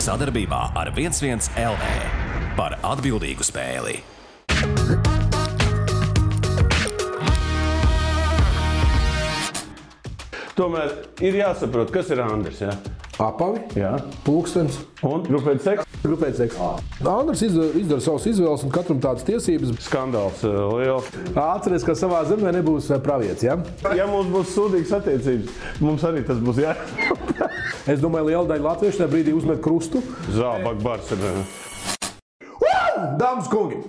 Sadarbībā ar 11 LV par atbildīgu spēli. Tomēr ir jāsaprot, kas ir Andris, jā? Apavi, Jā. pulkstens. Un grupēt seks? Grupēt seks. Andris izdara savas izvēles un katram tādas tiesības. Skandāls liels. Atceries, ka savā zemē nebūs pravietis, ja? Ja mums būs sūdīgas attiecības, mums arī tas būs jā. Es domāju, liela daļa latviešu tajā brīdī uzmet krustu. Zābak bars ir. Dāmas kungi!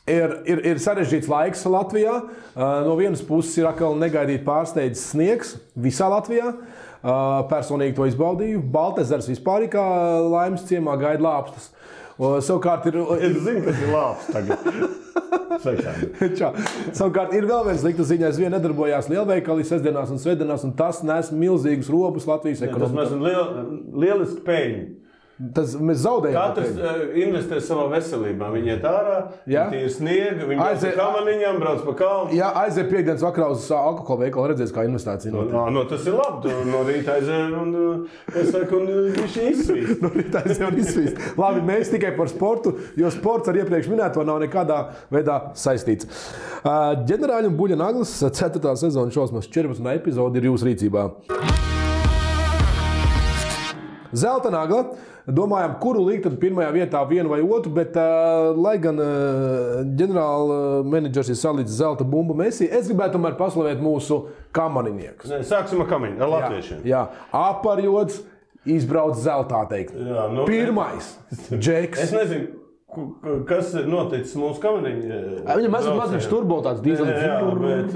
Ir sarežģīts laiks Latvijā. No vienas puses ir atkal negaidīt pārsteidzis sniegs visā Latvijā. Personīgi to izbaudīju. Baltezers vispār kā laimes ciemā gaida lāpstas. Savukārt ir... Es zinu, kas ir lāps tagad. Savukārt ir vēl viens slikta ziņa. Aizvien nedarbojās lielveikali sestdienās un svētdienās, un tas nes milzīgus robus Latvijas ekonomikā. Tas mēs lieliski peļņu. Mēs zaudējam. Katrs investē savā veselībā. Viņi iet ārā, viņi ir sniega, viņi brauc pa kamaniņām, brauc pa kalnu. Jā, aiziet piekdienas vakarā uz alkohola veikalu, redzēs, kā investācija notiek. Tas ir labi. No rīta aiziet un viņš izsvīst. No rīta aiziet un izsvīst. Labi, mēs tikai par sportu, jo sports ar iepriekš minēto nav nekādā veidā saistīts. Ģenerāļa un Buļļa Naglis 4. sezona šausmas 14. epizode ir jūsu rīcībā. Zelta nagla. Domājam, kuru likt tad pirmajā vietā vienu vai otru, bet lai gan ģenerāla menedžers ir salicis zelta bumbu Messi, es gribētu tomēr paslavēt mūsu kamaniniekus. Sāksim ar kamaniņu, ar latviešiem. Jā, Aparjots izbrauc zeltā teikt. Jā, Pirmais, Džeks. Es nezinu. Kas ir noticis mūsu kamaniņu? Viņam mazliet turbo tāds dīzelis. Jā, bet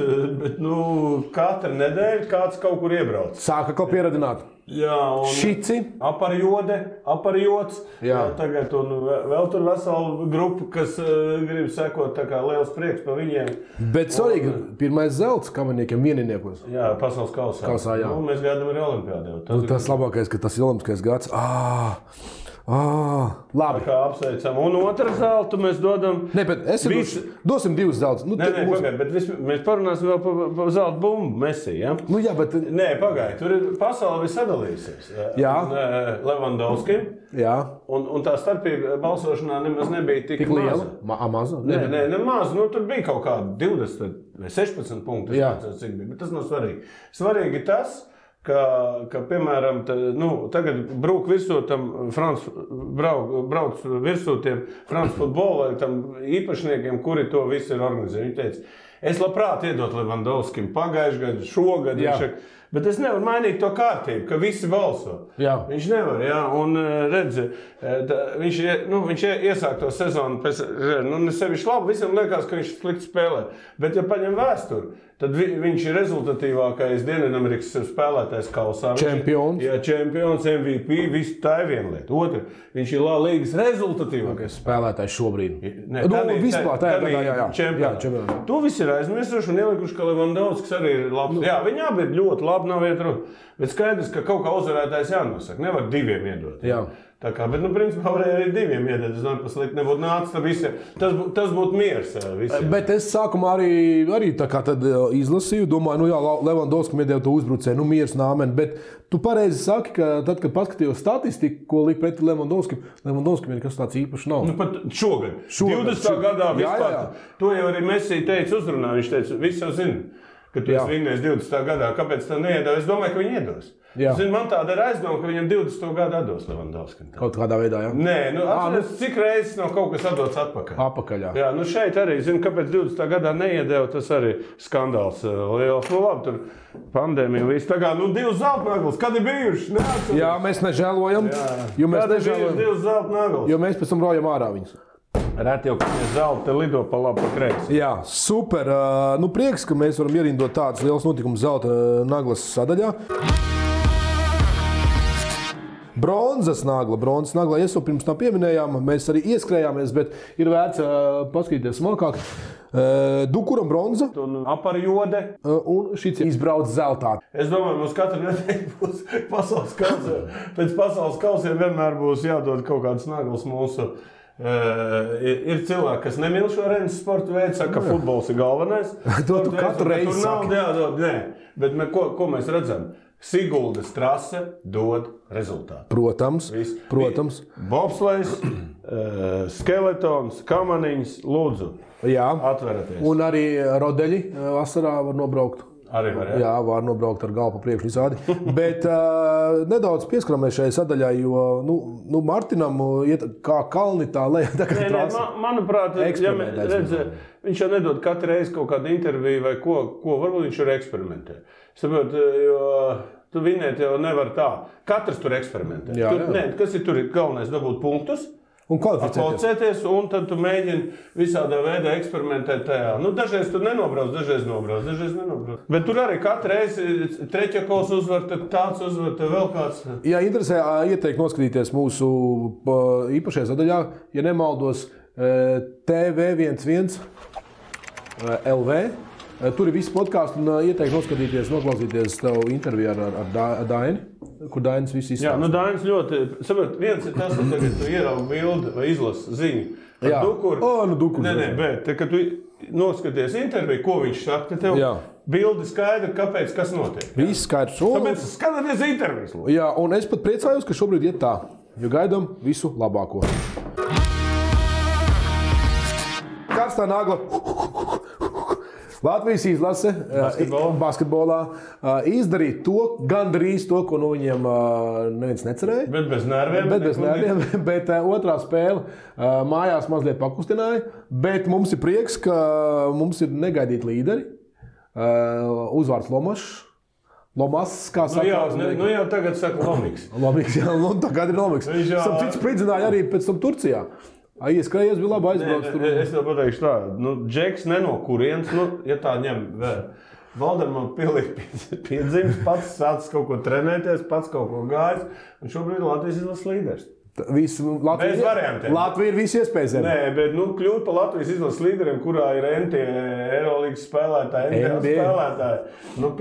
katru nedēļu kāds kaut kur iebrauc. Sāka kaut pieradināt. Jā, un Šici. Aparjots. Jā. Tagad un vēl tur vesela grupa, kas grib sekot tā kā liels prieks par viņiem. Bet svarīgi, pirmais zelts kamaniniekiem vieniniekos. Jā, pasaules kausā. Jā. Mēs gaidām arī olimpiādē. Tas labākais, ka tas ir olimpiskais gads. Labi. Kā apsveicam. Un otru zeltu mēs dodam... Ne, bet dosim divus zeltus. Pagaid, bet mēs parunāsim vēl par zelta bumbu Messi, ja? Jā, bet... Nē, pagaid, tur ir pasaule viss sadalīsies. Jā. Levandovskim. Jā. Un tā starpība balsošanā nemaz nebija tik liela. Maza? Nē, nemaz. Tur bija kaut kādi 20 vai 16 punkti. Jā. Bet tas nav svarīgi. Svarīgi tas, ka piemēram, tagad brauc virsū tiem France futbola īpašniekiem, kuri to visu ir organizējuši. Viņi teica, es labprāt iedot Levandovskim pagājušajā gadu, šogad, bet es nevaru mainīt to kārtību, ka visi balso. Jā. Viņš nevar, jā, un redz, viņš iesāk to sezonu, nesevišķi labi, visam liekas, ka viņš slikti spēlē, bet ja paņem vēsturi, tad viņš ir rezultatīvākais Dienvidamerikas spēlētājs kausā. Čempions. Jā, čempions, MVP, viss tā ir viena lieta. Otra, viņš ir līgas rezultatīvākais spēlētājs šobrīd. Vispār, čempions. To viss ir aizmirsuši un ielikuši, ka Levandovskis arī ir labs. Jā, viņi abi ir ļoti labi, nav iet runa. Bet skaidrs, ka kaut kā uzvarētājs jānosaka. Nevar diviem iedot. Jā. Tā kā, bet, principā, varēja arī diviem iedot. Es domāju, paslikt nebūtu nācis, tas būtu miers visiem. Bet es sākumā arī tā kā tad izlasīju, domāju, Levandovskim iedēja to uzbrucēju, miers nāmen, bet tu pareizi saki, ka tad, kad paskatījos statistiku, ko liek pretī Levandovskim ir kas tāds īpašs nav. Pat šogad. 20. gadā vispār. Jā. To jau arī Messi teica uzrunā, viņš teica, visi jau zina, ka tu esi vinnējis 20. gadā, kāpēc tā neiedod? Es domāju, ka viņi iedos. Man tāda ir aizdoma, ka viņam 20. gadu atdos Levandovskim. Kaut kādā veidā, jā? Nē, atceries, cik reizes nav kaut kas atdots atpakaļ. Apakaļ, jā. Jā, šeit arī, kāpēc 20. gadā neiedeva, tas arī skandāls liels. Labi, tur pandēmija viss. Tā kā, 2 zelta naglas, kad ir bijuši? Jā, mēs nežēlojam. Jo mēs pēc tam rojam ārā viņus. Reti jau, ka mēs zelta lido pa labi, pa kreisi. Jā, super. Prieks, ka mēs varam ierindot tādas lielas notikumus zelta naglas sadaļā. Bronzas nagla. Es jau pirms tam pieminējām, mēs arī ieskrējāmies, bet ir vērts paskatīties smalkāk. Dukuram bronza. Aparjode. Un šis izbrauc zeltā. Es domāju, mums katru nedēļu būs pasaules kausē. Pēc pasaules kausiem vienmēr būs jādod kaut kādas naglas mūsu. Ir cilvēki, kas nemīl šo rennes sporta veidu, saka, ka futbols ir galvenais. To tu katru reizi saki. Tur nav jādod, nē. Bet ko mēs redzam? Siguldas trase dod rezultātu. Protams. Bobslejs, skeletons, kamaniņas, lūdzu, atveraties. Un arī rodeļi vasarā var nobraukt. Arī var, jā, var nobraukt ar galvu pa priekšu visādi. Bet nedaudz pieskaramies šai sadaļai, jo Martinam iet kā kalni tā lejā. Manuprāt, viņš jau nedod katru reizi kaut kādu interviju vai ko varbūt viņš ir eksperimentē. Saprot, jo tu vinēt jau nevar tā. Katrs tur eksperimentē. Kas ir tur galvenais dabūt punktus? Un kvalificēties, un tad tu mēģini visādā veidā eksperimentēt tajā. Dažreiz tu nenobrauc, dažreiz nenobrauc. Bet tur arī katru reizi Treķakovs uzvar, tad tāds uzvar, tad vēl kāds. Jā, interesē ieteikt noskatīties mūsu īpašajā sadaļā, ja nemaldos, TV11 LV. Tur ir visi podkāsti un ieteikt noskatīties, noklausīties tavu interviju ar Daini, kur Dainis viss izstāsta. Dainis ļoti, saprot, viens ir tas, ka tagad tu ieraugi bildi vai izlasi ziņu. Dukuru. Dukuru. Bet, kad tu noskaties interviju, ko viņš saka, tad tev bildi skaidri, kāpēc, kas notiek. Viss skaidrs. Tāpēc skatāties intervijas. Jā, un es pat priecājos, ka šobrīd iet tā, jo gaidām visu labāko. Karstā nagla. Latvijas izlase basketbolā izdarīja gandrīz to, ko no viņiem neviens necerēja. Bet bez nerviem. Bet otrā spēle mājās mazliet pakustināja. Bet mums ir prieks, ka mums ir negaidīti līderi. Uzvārds Lomas, kā saka. Jau tagad saka Lomiks. Lomiks, jā, tagad ir Lomiks. Cits spridzināja arī pēc tam Turcijā. Ieskrējies bija labi aizbraucis tur. Es tev pateikšu tā, Džeks ne no kurienes, ja tā ņem vēl. Valderman pilnīgi piedzimis, pats sācis kaut ko trenēties, pats kaut ko gājis, un šobrīd Latvijas izlases līderis. Bez variantiem. Latvija ir visi iespējas. Nē, bet kļūt par Latvijas izlases līderiem, kurā ir NT Eurolīgas spēlētāji, NBA spēlētāji.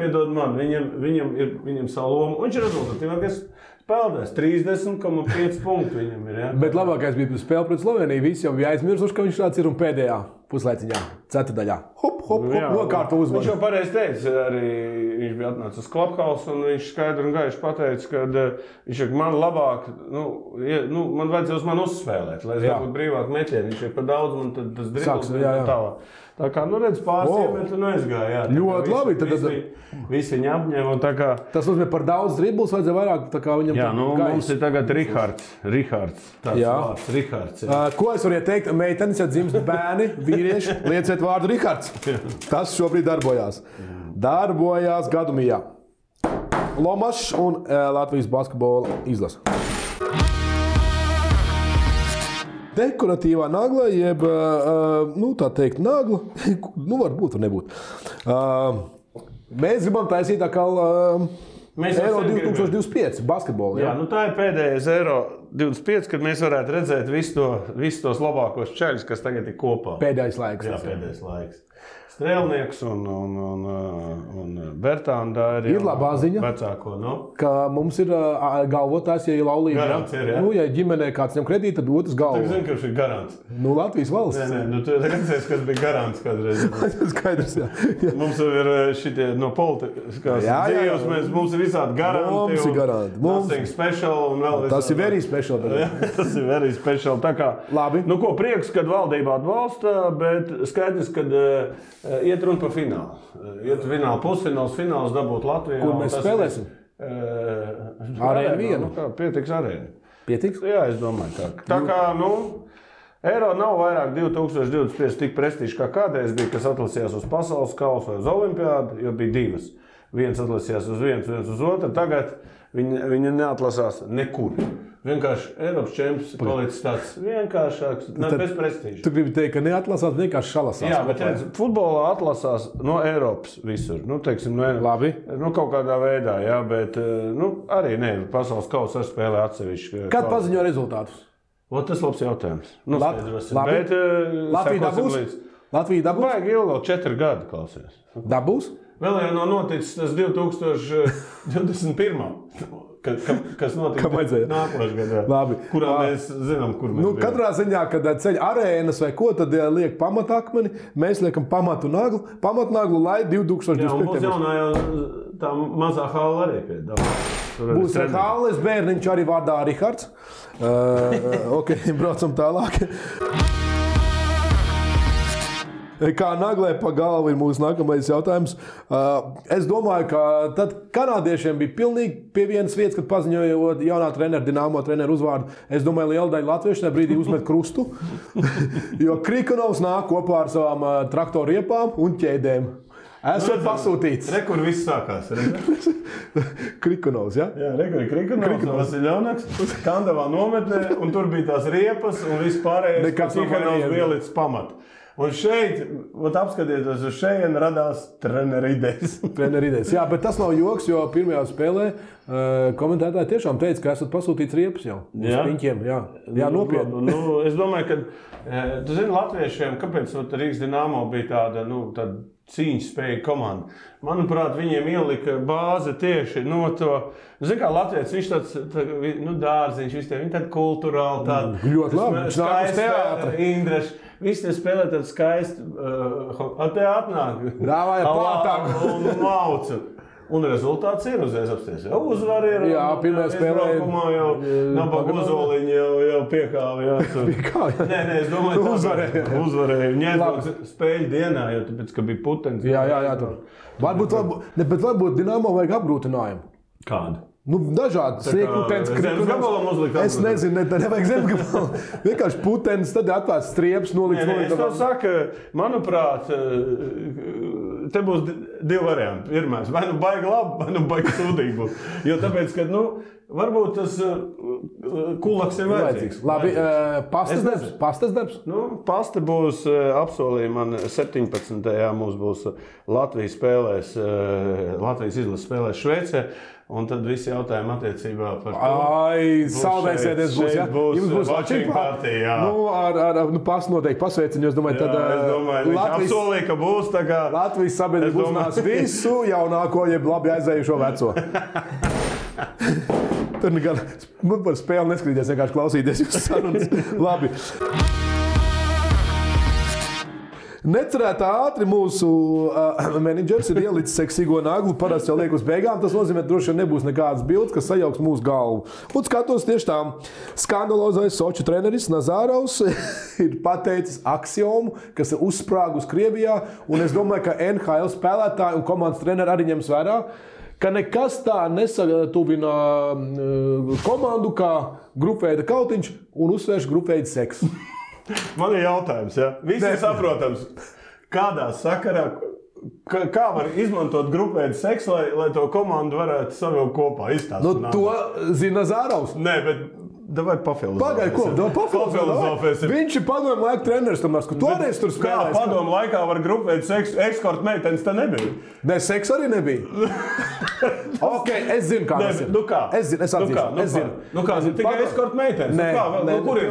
Piedod man, viņam savu lomu, un viņš ir rezultatīvākais spēlētājs. 30,5 punktu viņam ir. Ja? Bet labākais bija spēle pret Sloveniju. Visi jau bija aizmirsuši, ka viņš tāds ir un pēdējā puslaiciņā, ceturdaļā. Hop, nokārto uzvaru. Viņš jau pareizi teica, arī viņš bija atnācis uz Clubhouse un viņš skaidri un gaiši pateica, ka viņš ir man labāk, man vajadzēja uz mani uzspēlēt, lai es dabūtu brīvāk metienu. Viņš ir par daudz, man tad tas dribbles tālāk. Tā kā, redz, pāris iemet un aizgāja. Ļoti labi. Visi viņi apņēma un tā kā... Tas nozīmē par daudz dribbles, vajadzēja vairāk tā kā viņam mums ir tagad Rihards. Tāds vārds, Rihards. Ko es varu ieteikt? Meitenes, ja dzimst bērni, vīrieši, lieciet vārdu Rihards. Tas šobrīd darbojās. Darbojās Gadumijā. Lomašs un Latvijas basketbola izlase. Dekoratīvā nagla, jeb, tā teikt, nagla, varbūt, var nebūt. Mēs gribam taisīt atkal Eiro 2025 basketbolu. Jā, tā ir pēdējais Eiro 25, kad mēs varētu redzēt visus tos labākos čeļus, kas tagad ir kopā. Pēdējais laiks. Jā, pēdējais laiks. Strēlnieks un Bertānda ir labā ziņa, vecāko, ka mums ir galvotājs, ja ir laulība. Garants ir, jā? Ja ģimenē kāds ņem kredītu, tad otrs galvo. Tu zini, ka viņš ir garants. Latvijas valsts. Nē, tu redzēsi, kas bija garants kādreiz. Skaidrs, jā. Mums ir šitie no politiskās dzīves, mums ir visādi garanti. Mums ir garanti. Nothing special un vēl visādi. Tas ir very special. Tas ir very special. Tā kā, labi. Ko prieks, kad valdība atbalsta, bet skaidrs, kad iet runa par finālu. Iet finālu, pusfināls, fināls dabūt Latvijā. Kur mēs spēlēsim? Arēna vienu. Pietiks arēna. Pietiks? Jā, es domāju tā. Tā kā, Eiro nav vairāk 2025 tik prestižs kā kādreiz bija, kas atlasījās uz pasaules kausu vai uz olimpiādu, jo bija divas. Viens atlasījās uz viens uz otru. Tagad viņi neatlasās nekur. Vienkārši Eiropas čempions palicis tāds vienkāršāks, bez prestīža. Tu gribi teikt, ka neatlasās, vienkārši šalasās. Jā, bet futbolā atlasās no Eiropas visur. Teiksim, labi. Kaut kādā veidā, jā, bet arī pasaules kausa ar spēlē atsevišķi. Kad paziņo rezultātus? Tas labs jautājums. Labi. Bet Latvija dabūs? Latvija dabūs? Vajag ilgi, 4 gadi, klausies. Dabūs? Vēl jau nav noticis tas 2021. Kas notika nākošajā gadā. Labi. Kurā mēs zinām, kur mēs bijām. Katrā ziņā, kad ceļ arēnas vai ko, tad liek pamatakmeni, mēs liekam pamatnaglu, lai 2025. Jā, mums jaunā jau tā mazā hāla arī piedāvā. Būs Hāles bērniņš arī vārdā Rihards. Ok, braucam tālāk. Kā naglē pa galvu ir mūsu nākamais jautājums. Es domāju, ka tad kanādiešiem bija pilnīgi pie vienas vietas, kad paziņojot jaunā trenera, Dinamo treneru uzvārdu. Es domāju, liela daļa latviešu tajā brīdī uzmet krustu, jo Krikonovs nāk kopā ar savām traktoru riepām un ķēdēm. Esat pasūtīts. Kur viss sākās. Krikonovs, ja? Jā, kur ir Krikonovs, Vasiļonaks, Kandavā nometnē, un tur bija tās riepas, un viss pārējais, ka Krikonovs bija līdz pamatu. Un šeit, apskatieties uz šeit, radās treneru idejas. Treneru idejas. Jā, bet tas nav joks, jo pirmajā spēlē komentētāji tiešām teica, ka esat pasūtīts riepas jau. Uz piņķiem, jā, nopietni. Es domāju, ka, tu zini, latviešiem, kāpēc Rīgas Dinamo bija tāda, tāda cīņas spēja komanda. Manuprāt, viņiem ielika bāze tieši no to. Zini, kā Latvijas, viņš tāds dārziņš, viņi tādi kulturāli, tādi ļoti labi, skaisti Indraši. Visi tie spēlē tādu skaistu, te atnāk, un maucu. Un rezultāts ir uzreiz apsties. Jau uzvar ir. Jā, pirmajā spēlē. Jau nabaga uzoliņi jau piekāva. Nē, es domāju, tā uzvarēja. Ņēdot spēļu dienā, jo tāpēc, ka bija putens. Jā, tur. Varbūt Dinamo vajag apgrūtinājumu. Kādu? Dažādi sniegputens, Krikonovs. Es nezinu, nevajag zemgabalu. Vienkārši putens, tad atvērts strieps, nolikt. Es to saku, manuprāt, te būs divi varianti. Pirmais, vai baigi labi, vai baigi sūdīgi. Jo tāpēc, ka, varbūt tas kulaks ir vajadzīgs. Labi, pastas darbs? Pasta būs apsolīja man 17. Mums būs Latvijas izlases spēlēs Šveicē. Un tad visi jautājumi attiecībā par to. Saldēsēties būs, ja? Jums būs watching party, jā. Pasta noteikti pasveiciņu, es domāju, tad... Es domāju, viņš apsolīja, ka būs tā kā... Latvijas sabiedrība uzzinās visu jaunāko, jeb labi aizējušo veco. Tur nekad, par spēli neskrīties, vienkārši klausīties jūsu sarunas. Labi. Necerētā ātri mūsu menedžers ir ielicis seksīgo naglu, parasti jau liek uz beigām. Tas nozīmē, ka droši vien nebūs nekādas bildes, kas sajauks mūsu galvu. Un skatos tieši tā, skandalozais Soču treneris Nazārovs ir pateicis aksiomu, kas ir uzsprāgus Krievijā. Un es domāju, ka NHL spēlētāji un komandas treneri arī ņems vērā, ka nekas tā nesatuvina komandu kā grupveida kautiņš un uzsvērš grupveida seksu. Man ir jautājums, ja? Visi saprotams, kādā sakarā, kā var izmantot grupveidu seksu, lai to komandu varētu savilkt kopā, izstāstīt? To zina Nazārovs. Nē, bet davai pafilozofēsim. Pagaid, ko? Pafilozofēsim. Viņš ir padomu laiku treneris, tomēr, ka toreiz tur spēlēs. Kā padomu laikā var grupveidu seksu, eskorta meitenes tā nebija? Nē, seks arī nebija. Ok, es zinu, kā tas ir. Es zinu. Tikai eskorta meitenes. Kur ir?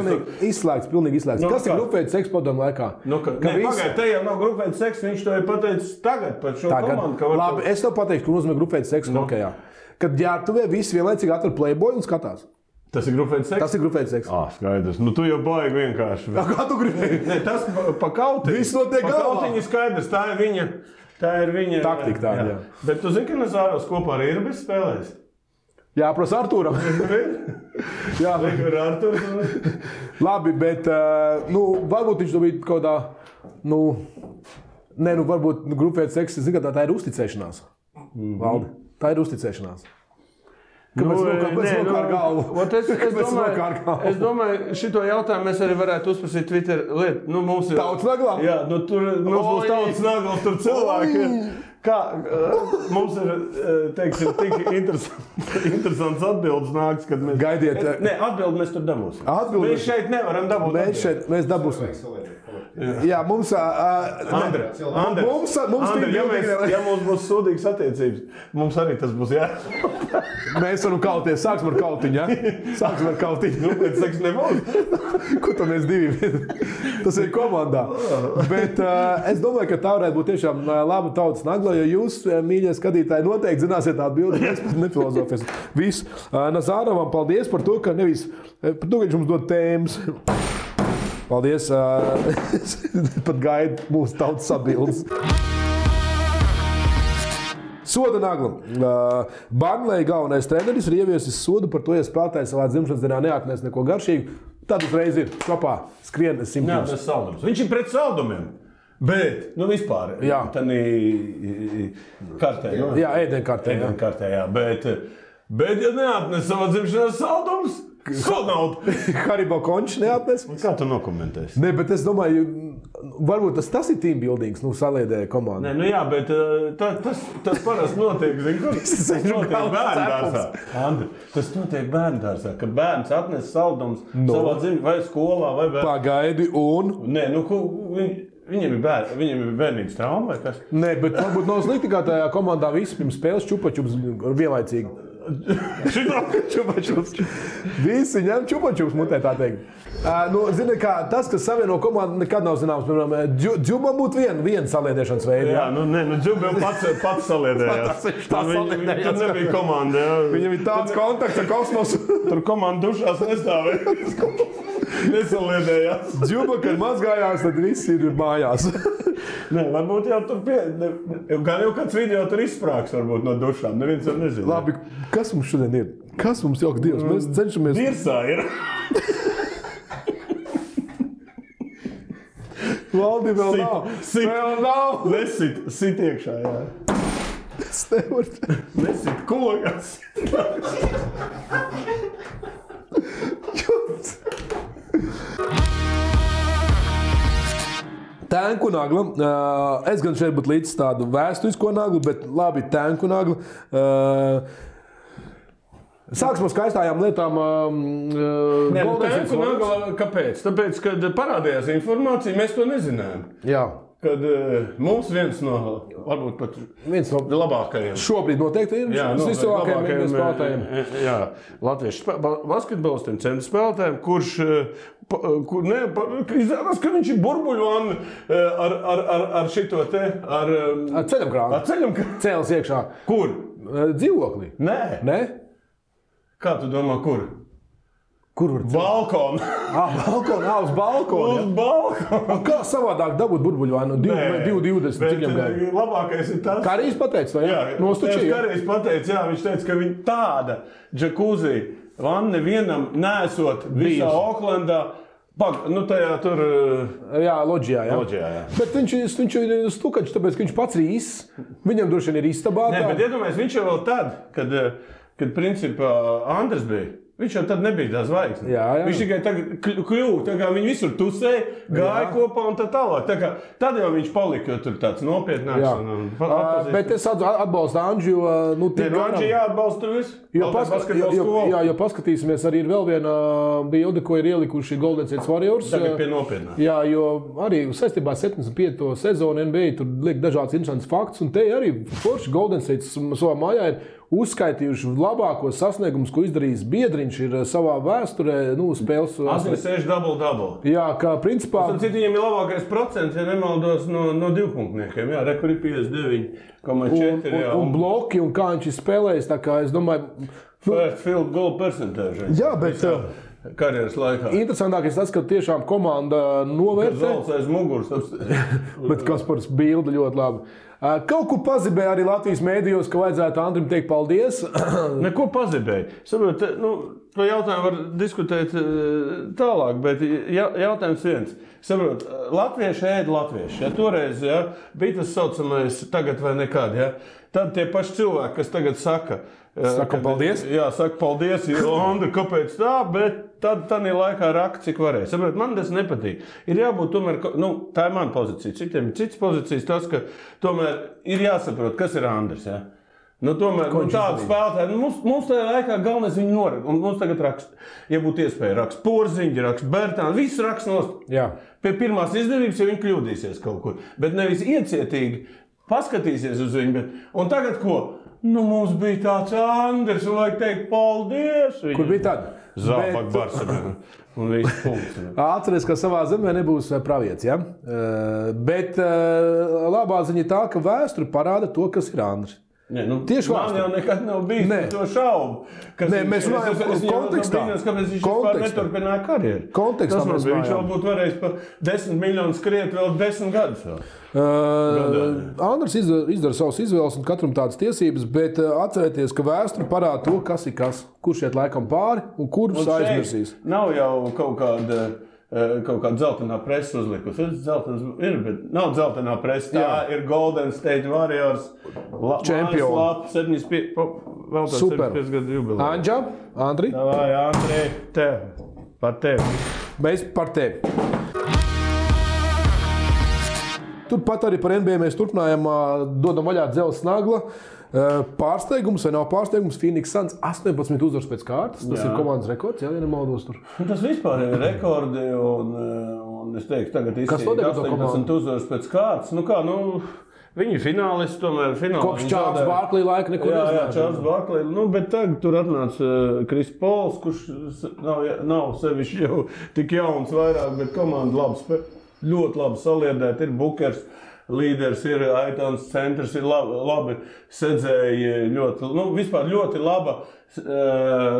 Izslēgts, pilnīgi izslēgts. Kas ir grupveidu seksu padomu laikā? Pagaid, te jau nav grupveidu seksu, viņš to ir pateicis tagad par šo komandu. Labi, es tev pateikšu, ka nozīmē grupveidu seksu hokejā. Kad ģērbtuvē visi vienlaicīgi atver Playboy un skatās. Tas ir grupveids seks? Tas ir grupveids seks. Skaidrs. Tu jau baigi vienkārši. Kā tu gribēji? Nē, tas pa kautiņu. Viss notiek galvā. Pa kautiņu skaidrs. Tā ir viņa... Taktika tāda, jā. Bet tu zini, ka Nazārovs kopā ar Irbis spēlēs? Jā, prasa Artūram. Jā. Ar Artūru. Labi, bet, varbūt viņš to bija kaut kā, varbūt grupveids seks, zini, ka tā ir uzticēšanās. Valdi, tā ir uzticēšanās. Kāpēc nokār galvu? Es domāju, šito jautājumu mēs arī varētu uzprasīt Twitter lietu. Tautas naglā? Jā, tur mums būs tautas naglas, tur cilvēki. Kā mums ir, teiksim, tik interesants atbildes nāks, kad mēs... Gaidiet. Nē, atbildi mēs tur dabūsim. Mēs šeit nevaram dabūt. Mēs dabūsim. Jā, mums... Andri, ja mums būs sūdīgas attiecības, mums arī tas būs jā. Mēs varam kauties. Sāksim ar kautiņu, ja? Sāksim ar kautiņu. Grupveids seks nebūs. Ko tam mēs divi? Tas ir komandā. Bet es domāju, ka tā varētu būt tiešām laba tautas nagla, jo jūs, mīļie skatītāji, noteikti zināsiet atbildi. Mēs pat nefilozofēsim. Viss. Nazārovam paldies par to, ka nevis... Par to, ka viņš mums dod tēmas. Paldies. Pat gaidu mūsu tautas atbildes. Soda nagla. Burnley galvenais treneris ir ieviesis sodu par to, ja spēlētājs savā dzimšanas dienā neatnes neko garšīgu. Tad uzreiz ir kopā skrien 100 km. Viņš ir pret saldumiem. Bet, vispār, tādā kartē. Jā, ēdienkartē. Jā. Bet, ja neatnes savā dzimšanas saldumus, Sonaudu. Haribo končs neatnes. Kā tu nokomentēsi? Ne, bet es domāju, varbūt tas ir team buildings, saliedēja komandu. Ne, jā, bet tas parasti notiek, tas notiek bērndārsā. Andri, tas notiek bērndārsā, ka bērns atnes saldumus savā dzimšanas vai skolā vai bērnā. Pagaidi un? Nē, viņiem ir bērnības trauma vai kas? Nē, bet varbūt nav slikti, kā tajā komandā visi pirms spēles čupačups vienlaicīgi. Visi ņem čupačups mutē, tā teikt. Zini, kā tas, kas savieno komandu, nekad nav zināms. Piemēram, Džubam būtu viena saliedēšanas veida. Jā, Džubam pats saliedējās. Tur nebija komanda. Jā. Viņam ir tāds kontakts ar kosmosu. Tur komanda dušās nestāvēja. Nesaliedējās. Džuba, kad mazgājās, tad visi ir mājās. Nē, varbūt jau tur gan jau kāds video tur izsprāgs varbūt no dušām. Neviens jau nezina. Labi, kas mums šodien ir? Kas mums jok Dievs? Mēs cenšamies... Dirsā ir. Valdi vēl nav. Vēl nav. Sit iekšā, jā. Es nevaru. Nesit kogas. Tēnku nagla. Es gan šeit būtu līdz tādu vēsturisko naglu, bet labi, tēnku nagla. Sāksim ar skaistājām lietām. Tēnku nagla, kāpēc? Tāpēc, kad parādījās informācija, mēs to nezinājām. Jā. Kad mums viens no, varbūt pat labākajiem. Šobrīd noteikti ir vislabākajiem spēlētājiem. Jā, latviešu basketbolistiem, centra spēlētājiem, kurš izrādās, ka viņš ir burbuļvana ar šito te, ar ceļam krānu. Cēlis iekšā. Kur? Dzīvoklī. Nē. Kā tu domā, kur? Kur var balkonu? Balkonā, uz balkonu. Uz balkonu. Kā savādāk dabūt burbuļvānu? 2,20. Bet labākais ir tas. Karijs pateica, vai? Jā, Karijs pateica, jā, viņš teica, ka viņa tāda džakuzī vanne vienam nesot visā Oklandā. Tajā tur... Jā, loģijā, jā. Bet viņš ir stukačs, tāpēc, ka viņš pats ir īsts. Viņam droši vien ir istabā. Nē, bet iedomājies, viņš jau vēl tad, kad principā Andris bija. Viņš jau tad nebija tā zvaigzne. Jā. Viņš tikai tagad kļuva, tā kā viņi visur tusēja, gāja kopā un tā tālāk. Tad jau viņš palika, jo tur tāds nopietnāks. Bet es atbalstu Andžu. Andži jāatbalsta tur visu. Jo paskatīsimies, arī ir vēl viena bilde, ko ir ielikuši Golden State Warriors. Tagad pie nopietnā. Jā, jo arī saistībā 75. sezonu NBA tur liek dažāds interesants fakts, un te arī forši Golden State savā mājā ir uzskaitījuši labākos sasniegumus, ko izdarījis biedriņš ir savā vēsturē, spēles. 86 double. Jā, kā principā... Viņam ir labākais procents, ja nemaldos, no divpunktniekiem. Jā, rekur ir 59,4. Un bloki, un kā viņš ir spēlējis, tā kā es domāju... First field goal percentage. Jā, bet... Karjeras laikā. Interesantākais tas, ka tiešām komanda novērtē. Zolts aiz muguras. Bet Kaspars bilde ļoti labi. Kaut ko pazibēja arī Latvijas mēdījos, ka vajadzētu Andrim teikt paldies. Neko pazibēja. Saprot, to jautājumu var diskutēt tālāk, bet jautājums viens. Saprot, latvieši ēd latvieši. Ja toreiz bija tas saucamais tagad vai nekad, tad tie paši cilvēki, kas tagad saka paldies. Jā, saka paldies, Andri, kāpēc tā, bet tad ir laikā rakt, cik varēja. Saprot, man tas nepatīk. Ir jābūt tomēr, tā ir mana pozīcija. Citiem ir citas pozīcijas, tas, ka tomēr ir jāsaprot, kas ir Andris, tomēr, tādu spēlētāju, mums tajā laikā galvenais viņu norakst. Un mums tagad raksta, ja būtu iespēja rakst Porziņģi, rakst Bertāni, viss rakst nost. Jā. Pie pirmās izdevības, ja viņi kļūdīsies kaut kur. Bet nevis iecietīgi paskatīsies uz viņu. Un tagad ko? Mums bija tāds Andris, un vajag teikt paldies. Kur bija tad? Zābak Barcelona. Un viss punkts. Atceries, ka savā zemē nebūs pravietis, ja? Bet labā ziņa tā, ka vēsture parāda to, kas ir Andris. Tieši man jau nekad nav bijis par to šaubu. Mēs runājam par kontekstā. Kāpēc viņš vispār neturpināja karjeru? Kontekstā mēs runājam. Viņš vēl būtu varējis par 10 miljonus skriet vēl 10 gadus. Andris izdara savas izvēles un katram tādas tiesības, bet atcerieties, ka vēsture parāda to, kas ir kas. Kurš iet laikam pāri un kurš aizmirsīs. Nav jau kaut kāda dzeltenā presa uzlikusi. Ir, bet nav dzeltenā presa. Tā ir Golden State Warriors čempioni. 75 gadu jubileja. Anģa, Andri? Davai, Andri, par tevi. Mēs par tevi. Turpat arī par NBA mēs turpinājām, dodam vaļā Dzelzs Nagla. Pārsteigums vai nav pārsteigums? Phoenix Suns 18 uzvaras pēc kārtas. Tas ir komandas rekords, ja nemaldos tur. Tas vispār ir rekordi un es teiktu, tagad izsīja 18 uzvaras pēc kārtas. Viņi ir finālisti, tomēr finālisti. Kopš Čārls Barklī laika neko nezināja. Jā, Čārls Barklī. Bet tagad tur atnāca Kris Pols, kurš nav sevišķi jau tik jauns vairāk, bet komanda ļoti labi saliedēta. Ir Bukers. Līderis ir Aitons, centrs ir labi sedzēji, vispār ļoti laba,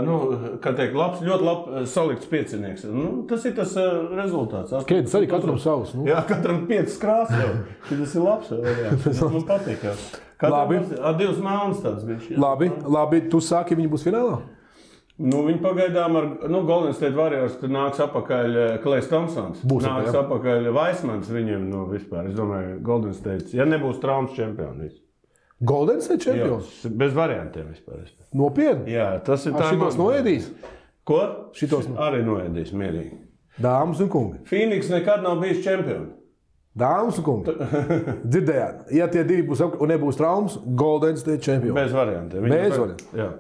ļoti labi salikts piecinieks. Tas ir tas rezultāts. Kēdes arī katram savs. Jā, katram 5 krāsas jau. Tas ir labs. Man patīk. Katram ar 2 melnas tāds bija. Labi, tu sāki, viņi būs finālā? Viņi pagaidām ar Golden State Warriors nāks apakaļ Klejs Thompsons. Nāks apakaļ Vaismans viņiem vispār. Es domāju, Golden State, ja nebūs traumas čempions. Golden State čempions? Jā, bez variantiem vispār. Nopietni? Jā, tas ir tā. Šitos noēdīs? Ko? Šitos arī noēdīs, mierīgi. Dāmas un kungi. Phoenix nekad nav bijis čempioni. Dāmas un kungi. Dzirdējāt, ja tie divi būs un nebūs traumas, Golden State čempions. Bez variantiem. Bez variantiem. Jā.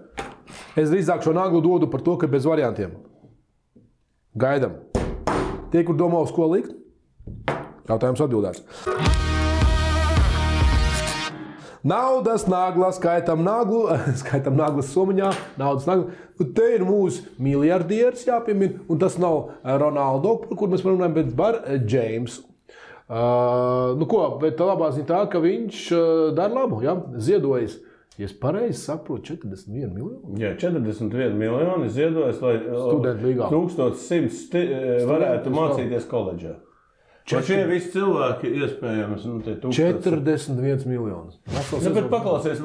Es drīzāk šo Naglu dodu par to, ka bez variantiem. Gaidam. Tie, kur domā uz ko likt? Jautājums atbildēts. Naudas nagla, skaitam naglas somiņā, naudas nagla. Te ir mūsu miljardieris jāpiemina, un tas nav Ronaldo, par kur mēs runājam, bet par James. Bet labā ziņa tā, ka viņš dara labu, ziedojas. Ja es pareizi saprotu, 41 miljoni? Jā, 41 miljoni ziedojas, lai 1100 varētu mācīties koledžā. Šie visi cilvēki iespējams. 41 miljonus. Bet paklausies,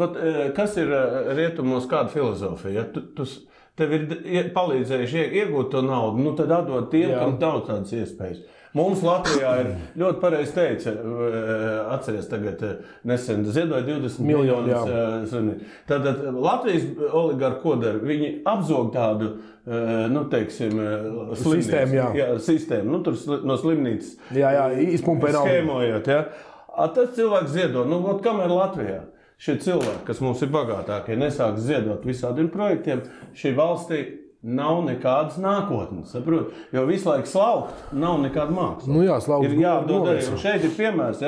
kas ir rietumos kāda filozofija? Tev ir palīdzējuši iegūt to naudu, tad atdod tiem, kam nav tādas iespējas. Mums Latvijā ir ļoti pareizi teica, atceries tagad nesen ziedoja 20 miljonus. Tātad Latvijas oligarhi ko dara? Viņi apzog tādu, sistēmu, tur no slimnīcas. Izpumpē naudu. Skēmojot, Tas cilvēks ziedo, kamēr Latvijā šie cilvēki, kas mums ir bagātākie, nesāks ziedot visādiem projektiem, šī valstī nav nekādas nākotnes, saprot? Jo visu laiku slaukt nav nekāda māksla. Slaukt. Ir jādod arī. Šeit ir piemērs,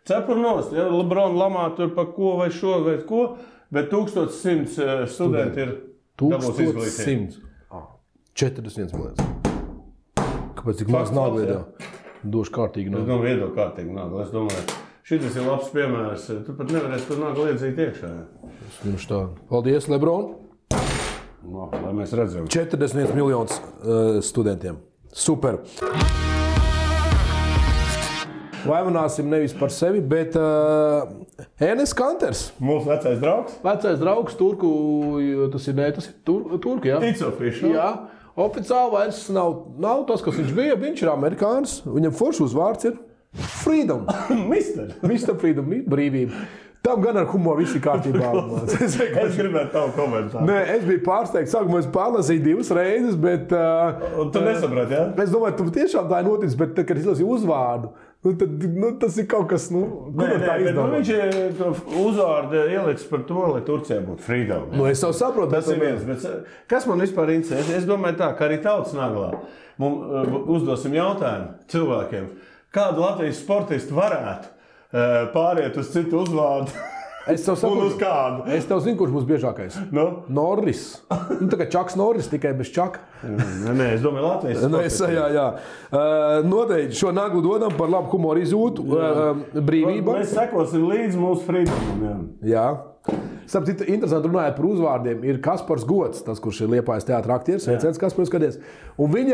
cepur nost, Lebrona lamā tur par ko vai šo vai ko, bet 1100 studenti ir dabūs izglītību. 41 miljonus. Kāpēc tik maz naudu iedā? Došu kārtīgi naudu. Es domāju, iedo kārtīgi naudu. Es domāju, šitas ir labs piemērs. Tu pat nevarēsi tur naudu iedzīt iekšā. Paldies, Lebron. Lai mēs redzam. 41 miljonus studentiem. Super. Vaimanāsim nevis par sevi, bet Enes Kanters. Mūsu vecais draugs. Vecais draugs Turku, tas ir Turku, jā? It's official. Jā. Oficiāli vairs nav tas, kas viņš bija. Viņš ir amerikānis. Viņam foršs uzvārds ir Freedom. Mr. Freedom, brīvība. Tam gan ar humoru viss ir kārtībā. Es gribētu tavu komentāru. Nē, es biju pārsteigts. Sākumā es pārlasīju 2 reizes, bet... Un tu nesaprati, jā? Es domāju, tu tiešām tā ir noticis, bet, kad es lasīju uzvārdu, tas ir kaut kas, viņš to uzvārdu ielicis par to, lai Turcijā būtu freedom. Es jau saprotu. Tas ir viens, bet kas man vispār interesē? Es domāju tā, ka arī Tautas naglā mums uzdosim jautājumu cilvēkiem. Kādu Latvijas sportistu varētu pāriet uz citu uzvārdu? Es tev saprotu. Un uz kādu? Es tev zinu, kurš būs biežākais. Norris. Tā kā Čaks Norris, tikai bez Čaka. Nē, es domāju Latvijas sportistu. Jā. Noteikti šo naglu dodam par labu humoru izjūtu, brīvību. Mēs sekosim līdz mūsu freedomam. Jā. Sapratu, interesanti runājot par uzvārdiem. Ir Kaspars Gods, tas, kurš ir Liepājas teātra aktieris, sveiciens Kaspars, skaties. Un viņi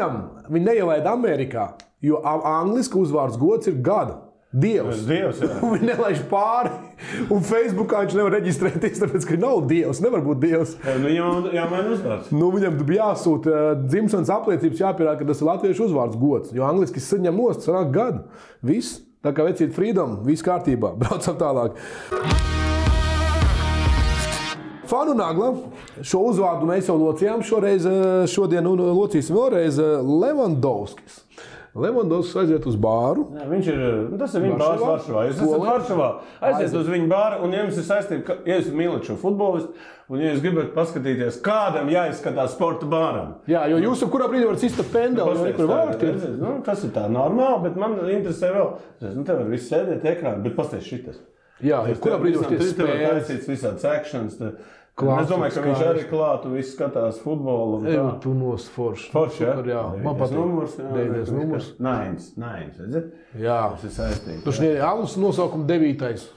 neielaida Amerikā, jo angliski uzvārds Gods ir gada. Dievs. Viņi nelaiž pāri. Un Facebookā viņš nevar reģistrēties, tāpēc, ka nav Dievs. Nevar būt Dievs. Viņam jāmaina uzvārds. Viņam jāsūta dzimšanas apliecības, jāpierāda, ka tas ir latviešu uzvārds Gods. Jo angliski saņem nost, sanāk gadu. Viss. Tā kā vecīt freedom, viss kārtībā. Braucam tālāk. Fanu Nagla. Šo uzvārdu mēs jau locījām šodien un locīsim vēlreiz Levandovskis. Levandovskis aiziet uz bāru. Jā, tas ir viņa bārs Varšavā. Jūs esat Varšavā, aiziet uz viņa bāru, un ja jums ir saistība, ja jūs mīlat šo futbolistu, un ja jūs gribat paskatīties, kādam jāizskatās sporta bāram. Jā, jo jūs kurā brīdī varat sista pendeli, kur vārti. Tas ir tā normāli, bet man interesē vēl. Te var visi sēdēt ekrāni, bet pasties šitas. Jā, kurā brīdī var spēles. Tur var taisīts visādi sekšanas. Es domāju, ka viņš arī klāt un viss skatās futbolu. Tu nost forši. Forši, jā? Man patīk. Numurs, jā. 9. numurs. Nains, redzat? Jā. Tas ir saistīts. Tu šeit alus nosaukuma 9.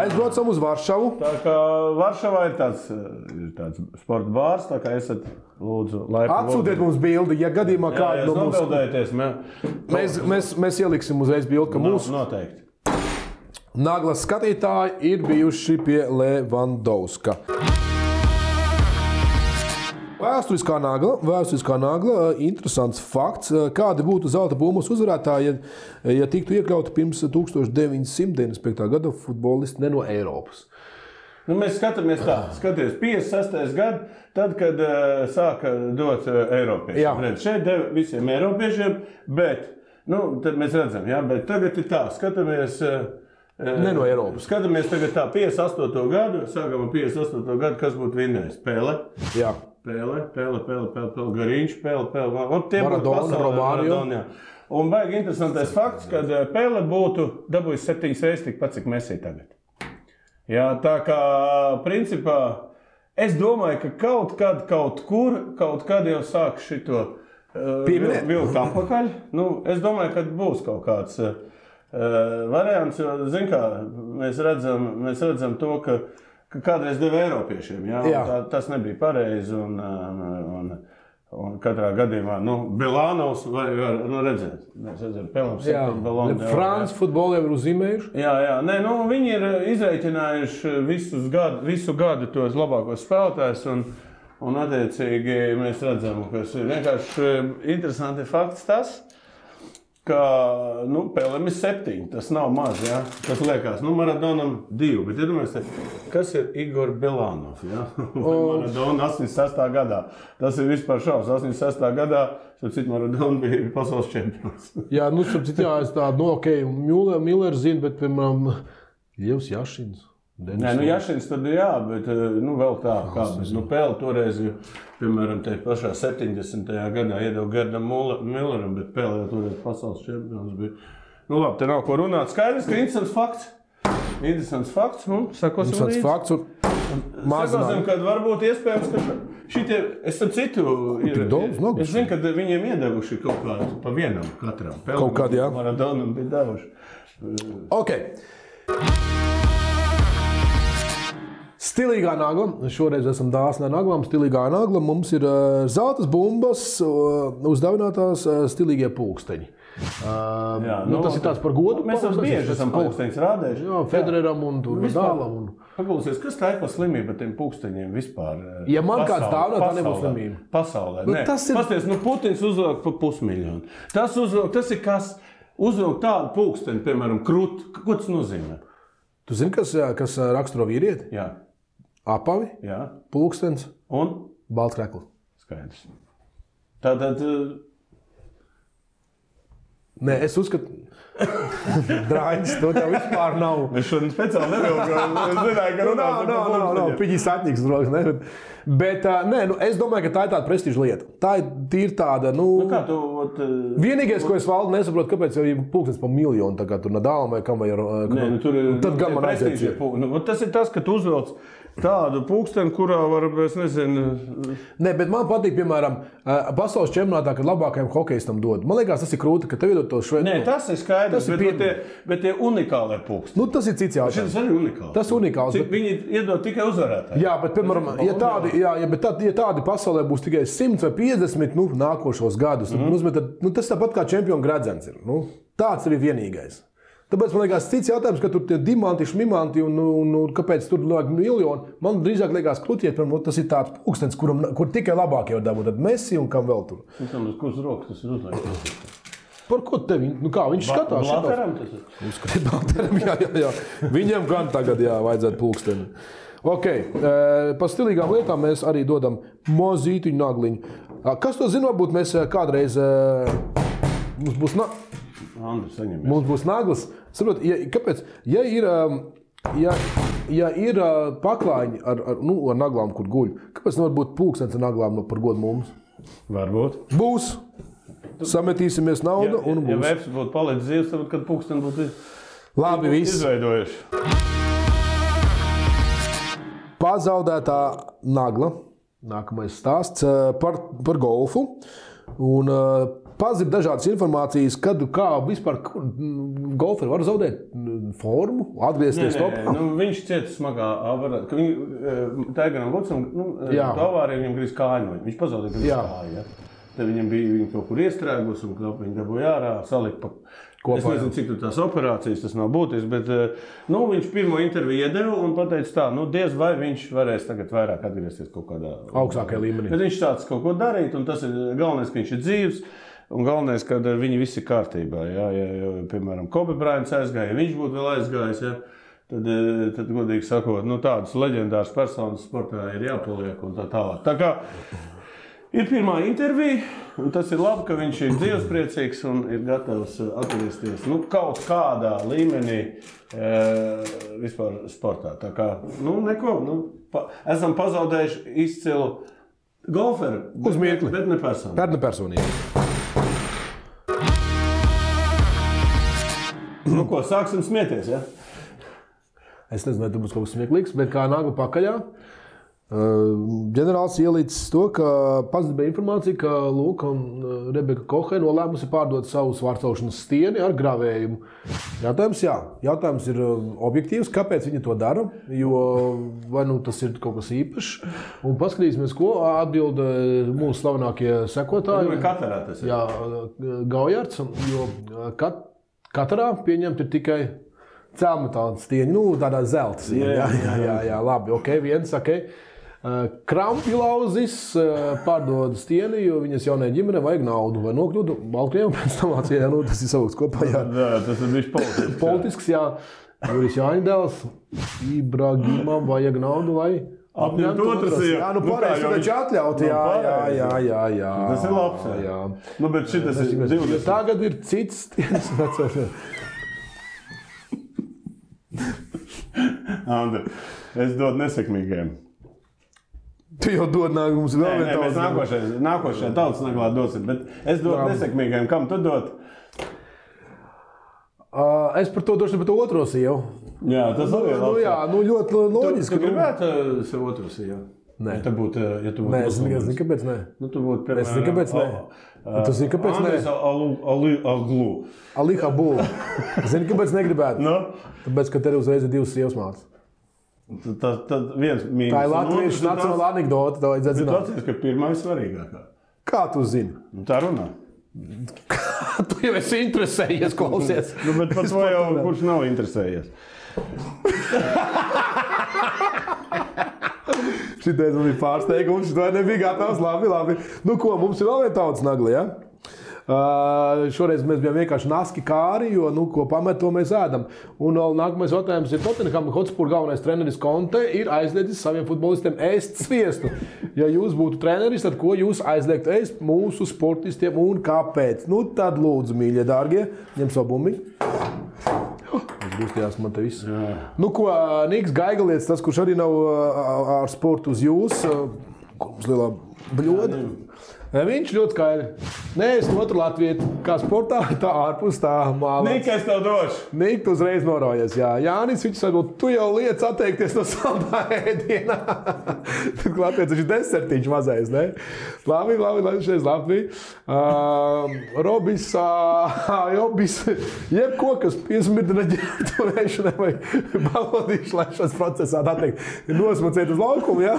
Aizbraucam uz Varšavu. Tā kā Varšavā ir tāds sporta bārs, tā kā esat lūdzu laipni. Atsūtiet mums bildi, ja gadījumā kādu no mums. Mēs ieliksim uzreiz bildi, ka mūsu noteikti. Naglas skatītāji ir bijuši pie Levandovska. Vēsturiskā nagla, interesants fakts. Kādi būtu zelta bumbas uzvarētāji, ja tiktu iekļauti pirms 1995. gada futbolisti ne no Eiropas? Mēs skatāmies tā, 56. gadu, tad, kad sāka dot Eiropiešiem. Šeit deva visiem Eiropiešiem, bet, tad mēs redzam, bet tagad ir tā, skatāmies... Ne no Eiropas. Skatāmies tagad tā, 58. gadu, sākam ar 58. gadu, kas būtu vinnējis? Pele. Jā. Pele, Gariņš, Pele. Maradona, Romario. Un baigi interesantais fakts, kad Pele būtu dabūjis 7 reizes tikpat, cik Messi tagad. Jā, tā kā, principā, es domāju, ka kaut kad jau sāk šito vilkt apakaļ. Es domāju, ka būs kaut kāds variants, jo, zin kā, mēs redzam to, ka kādreiz deva Eiropiešiem, tas nebija pareizi, un katrā gadījumā, Bilānovs var redzēt. Mēs redzam, Pelam 7 balonu. Franci futbolu jau ir uzzīmējuši? Jā, viņi ir izreikinājuši visu gadu tos labākos spēlētājus, un attiecīgi mēs redzam, kas ir vienkārši interesanti fakts tas, ka Pelam ir 7, tas nav maz, ja? Tas liekas, Maradonam 2, bet iedomājieties, kas ir Igor Bilānov, ja? Maradona 86. gadā. Tas ir vispār šaus, 86. gadā, Maradona bija pasaules čempions. Jā, es tādu, Miller zinu, bet, piemēram, Lievs Jašins. Jašins tad jā, bet vēl tā, Pele toreiz, piemēram, te pašā 70. gadā iedeva Gerdam Milleram, bet Pele jau toreiz pasaules čempions bija. Labi, te nav ko runāt. Skaidrs, ka interesants fakts. Sakosim fakts un mazināt. Sakosim, kad varbūt iespējams, ka šitie, es ar citu, es zinu, ka viņiem iedevuši kaut kādu pa vienam katram. Kaut kādu, jā. Maradonam bija devuši. Ok. Stilīgā nagla. Šoreiz esam dāsni ar naglām. Stilīgā nagla. Mums ir zeltas bumbas, uzdāvinātās stilīgie pulksteņi. Tas ir tāds par godu. Mēs bieži esam pulksteņus rādējuši. Jā, Federeram un Nadālam. Paklausies, kas tā ir par slimību ar tiem pulksteņiem vispār? Ja man kāds dāvinā, tā nebūs slimība. Pasaulē. Pasties, Putins uzvilk pa 500 000. Tas ir kas uzvilk tādu pulksteni, piemēram, krut. Ko tas nozīmē? Tu zini, kas raksturo vīrieti? Jā. Apavi, pulkstens un balts krekls. Skaidrs. Tātad... Nē, es uzskatu... Drāņas, to tev vispār nav. Es šodien speciāli nevilgām. Es zināju, ka runāsim par pulksteņiem. Piņi satņiks, droši, ne? Bet, es domāju, ka tā ir tāda prestiža lieta. Tā ir tāda, kā tu... Vienīgais, ko es valdu nesaprotu, kāpēc jau ir pulkstens pa 1 000 000, tā kā tur Nadālam vai kam vai... Tur ir... Tad gan man aiziet. Tas ir tas, ka tu uzvelc tādu pulksteni, kurā var, es nezinu... Nē, bet man patīk, piemēram, pasaules čempionātā, kad labākajam hokejistam dod. Man liekas, tas ir krūti, ka tev iedod to šveidu. Nē, tas ir skaidrs, bet tie unikālie pulksteni. Nu, tas ir cits jautājums. Šis arī unikāls. Tas unikāls. Bet... Viņi iedod tikai uzvarētāji. Jā, bet, piemēram, ja tādi pasaulē būs tikai 100 vai 50 nākošos gadus, tad tas tāpat kā čempionu gradzens ir. Tāds ir vienīgais. Tāpēc man liekas, cits jautājums, ka tur tie dimanti, šmimanti un kāpēc tur liek miljoni. Man drīzāk liekas kluķiet, tas ir tāds pulkstens, kur tikai labākie var dabūt. Tad Messi un kam vēl tur. Kurš rokas tas ir uzliekts? Par ko tevi? Kā viņš skatās? Blateram tas ir? Uzskatīt Blateram, jā. Viņam gan tagad vajadzētu pulksteni. Ok, par stilīgām lietām mēs arī dodam mozītiņu nagliņu. Kas to zina, varbūt mēs kādreiz mums būs Mums būs naglas. Saprot, kāpēc? Ja ir paklājiņi ar naglām, kur guļ, kāpēc nevar būt pulkstens ar naglām par godu mums? Varbūt. Būs. Sametīsimies naudu un būs. Ja Vēps būtu palicis dzīves, tad kad pulksteni būtu labi, viss. Izveidojuši. Pazaudētā nagla. Nākamais stāsts par golfu. Un pazib dažādas informācijas, kad kā vispār golferi var zaudēt formu, atgriezties topā. Viņš cieta smagā avarā, ka Taiganam Vudsam, avārija viņam grīz kāju. Viņš pazaudēja grīz kāju. Ja? Tad viņam bija kaut kur iestrēgus un viņi dabūja ārā, salika pa kopā. Es nezinu, cik tur tās operācijas, tas nav būtisks, bet viņš pirmo interviju iedeva un pateica tā, diez vai viņš varēs tagad vairāk atgriezties kaut kādā augstākajā līmenī. Bet viņš tāds kaut ko darīt un tas ir galvenais, ka viņš ir dzīvs. Un galvenais, ka viņi visi ir kārtībā. Ja, piemēram, Kobe Bryants aizgāja, ja viņš būtu vēl aizgājis, tad godīgi sakot, tādas leģendāras personas sportā ir jāpaliek un tā tālāk. Tā kā ir pirmā intervija, un tas ir labi, ka viņš ir dzīvespriecīgs un ir gatavs atgriezties kaut kādā līmenī vispār sportā. Tā kā, neko, esam pazaudējuši izcilu golferu, bet ne personīgi. Ko, sāksim smieties, ja? Es nezinu, vai tur būs kaut kas smieklīgs, bet kā nagla pakaļā. Ģenerālis ielicis to, ka pazīstama informācija, ka Luka un Rebeka Kohe nolēmusi pārdot savu svārcelšanas stieni ar gravējumu. Jautājums ir objektīvs, kāpēc viņi to dara, jo vai tas ir kaut kas īpašs. Un paskatīsimies, ko atbild mūsu slavenākie sekotāji. Katarā tas ir. Jā, Gaujards, jo Katarā pieņemt ir tikai cēlmetāla stieņa, tādā zelta stieņa. Jā, labi, ok, viens, ok. Krampjlauzis pārdod stieni, jo viņas jaunajai ģimenei vajag naudu. Vai nokļūdu Baltkrievijam pēc tam Vācijā, tas ir saukts kopā. Jā, tas ir bijis politisks. Politisks, jā. Juris Jāņdēls, Ibrahimam vajag naudu, lai apņemt otras. Jā, pareizi, tu taču atļaut. Jā. Tas ir labs. Jā. Bet šitas ir 20. Tagad ir cits stienis. Andri, es dodu nesekmīgiem. Tu jau dod mums vēl vienu tautas. Mēs nākošajā tautas naglā dosim, bet es dodu nesekmīgiem. Kam tu dod? Es par to došu par to otro sievu. Jā, tas arī ir labs. Jā, ļoti loģiski. Tu gribētu sev otru sievu? Nē. Ja tu būtu nē, es zinu, kāpēc nē. Tu būtu, piemēram, es zinu, kāpēc nē. Tu zini, kāpēc nē? Andris Aglu. Ali Habul. Zini, kāpēc negribētu? Tāpēc, ka tev uzreiz ir divas sievas mātes. Tad viens mīnus. Tā ir latviešu nacionāla anekdote, tā vajadzētu zināt. Tu atceries, ka pirmā ir svarīgākā. Kā tu zini? Tā runā. Tu jau esi interesējies, klausies. Bet par to jau kurš nav interesējies. Šitais man bija pārsteigums, šitā nebija gatavs. Labi. Ko, mums ir vēl viena tautas nagla, ja? Šoreiz mēs bijām vienkārši naski kāri, jo, ko pamet, to mēs ēdam. Un nākamais jautājums ir Tottenham Hotspur galvenais treneris Conte ir aizliedzis saviem futbolistiem ēst sviestu. Ja jūs būtu treneris, tad ko jūs aizliegtu ēst mūsu sportistiem un kāpēc? Tad lūdzu, mīļie, dārgie, ņem savu bumbiņu. Es gustījās man te viss. Ko, Niks Gaigalietis, tas, kurš arī nav ar sportu uz jūs, kur mums lielā bļoda, viņš ļoti skaidri. Nē, es otru Latviju, kā sportā, tā ārpus tā māla. Nika, es tev došu. Nika, tu uzreiz norojies, jā. Jānis, viņš varbūt, tu jau liec atteikties no saldā ēdienā. Tad Latvijas viņš desertiņš mazais, ne? Labi, šeit Latvija. Robis, jebko, kas piesmirdina ģērbtuvēšanai vai balodīšu laišanas procesā, tā teikt, nosmacēt uz laukumu, jā?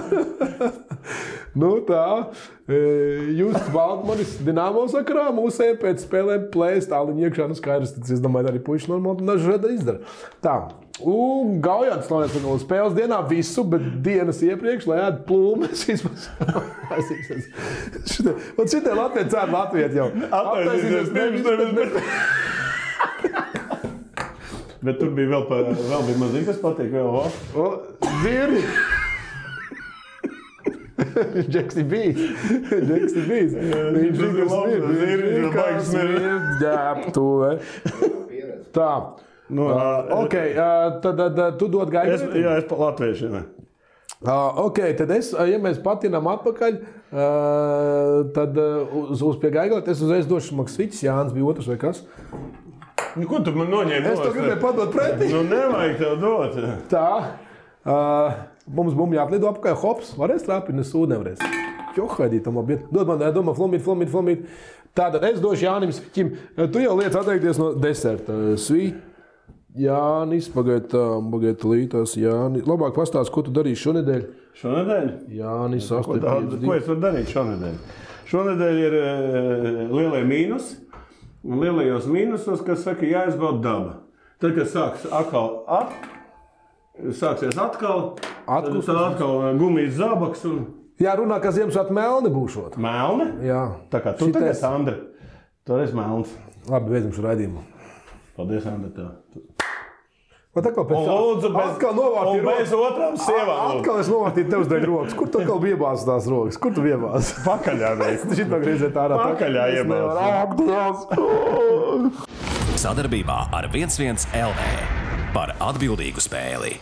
Nu tā, Justs Baltmanis Dinamo sakarā mūsējiem pēc spēlēm plēst tāliņu iekšā, nu skaidrs, tad es domāju, arī puiši normāli dažādi izdara. Tā, un Gaujāns Slavēts no spēles dienā visu, bet dienas iepriekš, lai ēd plūmes vispār. Un šitie Latvijas cēr Latviet jau. Atvainīsies, bet tur bija vēl bija mazīgi, kas patīk vēl. Zirni! Džeks ir bijis. Viņš ir baigs ģērbtuve. Tā. Ok, tad tu dod gaidu? Jā, es pa latviešiem. Ok, tad ja mēs patinām atpakaļ, tad uz pie gaigala, es uzreiz došu Maksviķis, Jānis bija otrs vai kas? Ko tu man noņēmi? Es to gribēju padot pretī. Nu, nevajag tev dot. Tā. Mums bumbi jāplido apkārt, hops, varēs trāpīt, nes ūdeni nevarēs. Johaidīt, tam labi. Dod man, domā, flomīt. Tātad es došu Jānim Sviķim. Tu jau liec atteikties no deserta. Jānis, pagaid lītās, Jānis. Labāk pastāst, ko tu darīsi šonedēļ? Šonedēļ? Jānis, 8. Ko es varu darīt šonedēļ? Šonedēļ ir lielie mīnus. Un lielajos mīnusos, kas saka, jāizbauda daba. Tad, kad sāksies atkal, tad atkal gumijas zābaks un... Jā, runā, ka Ziemassvētku melni būšot. Melni? Jā. Tā kā tu tagad, Andri, tu esi melns. Labi, beidzam šo raidījumu. Paldies, Andri, tev. Vat atkal pēc atkal novārtīju rokas. Un bez otrām sievām. Atkal es novārtīju tev uzdaļ rokas. Kur tu atkal biebāzi tās rokas? Kur tu biebāzi? Pakaļā reiz. Šitā griezēt ārā. Pakaļā iebāzi. Sadarbībā ar 11 LV par atbildīgu spēli.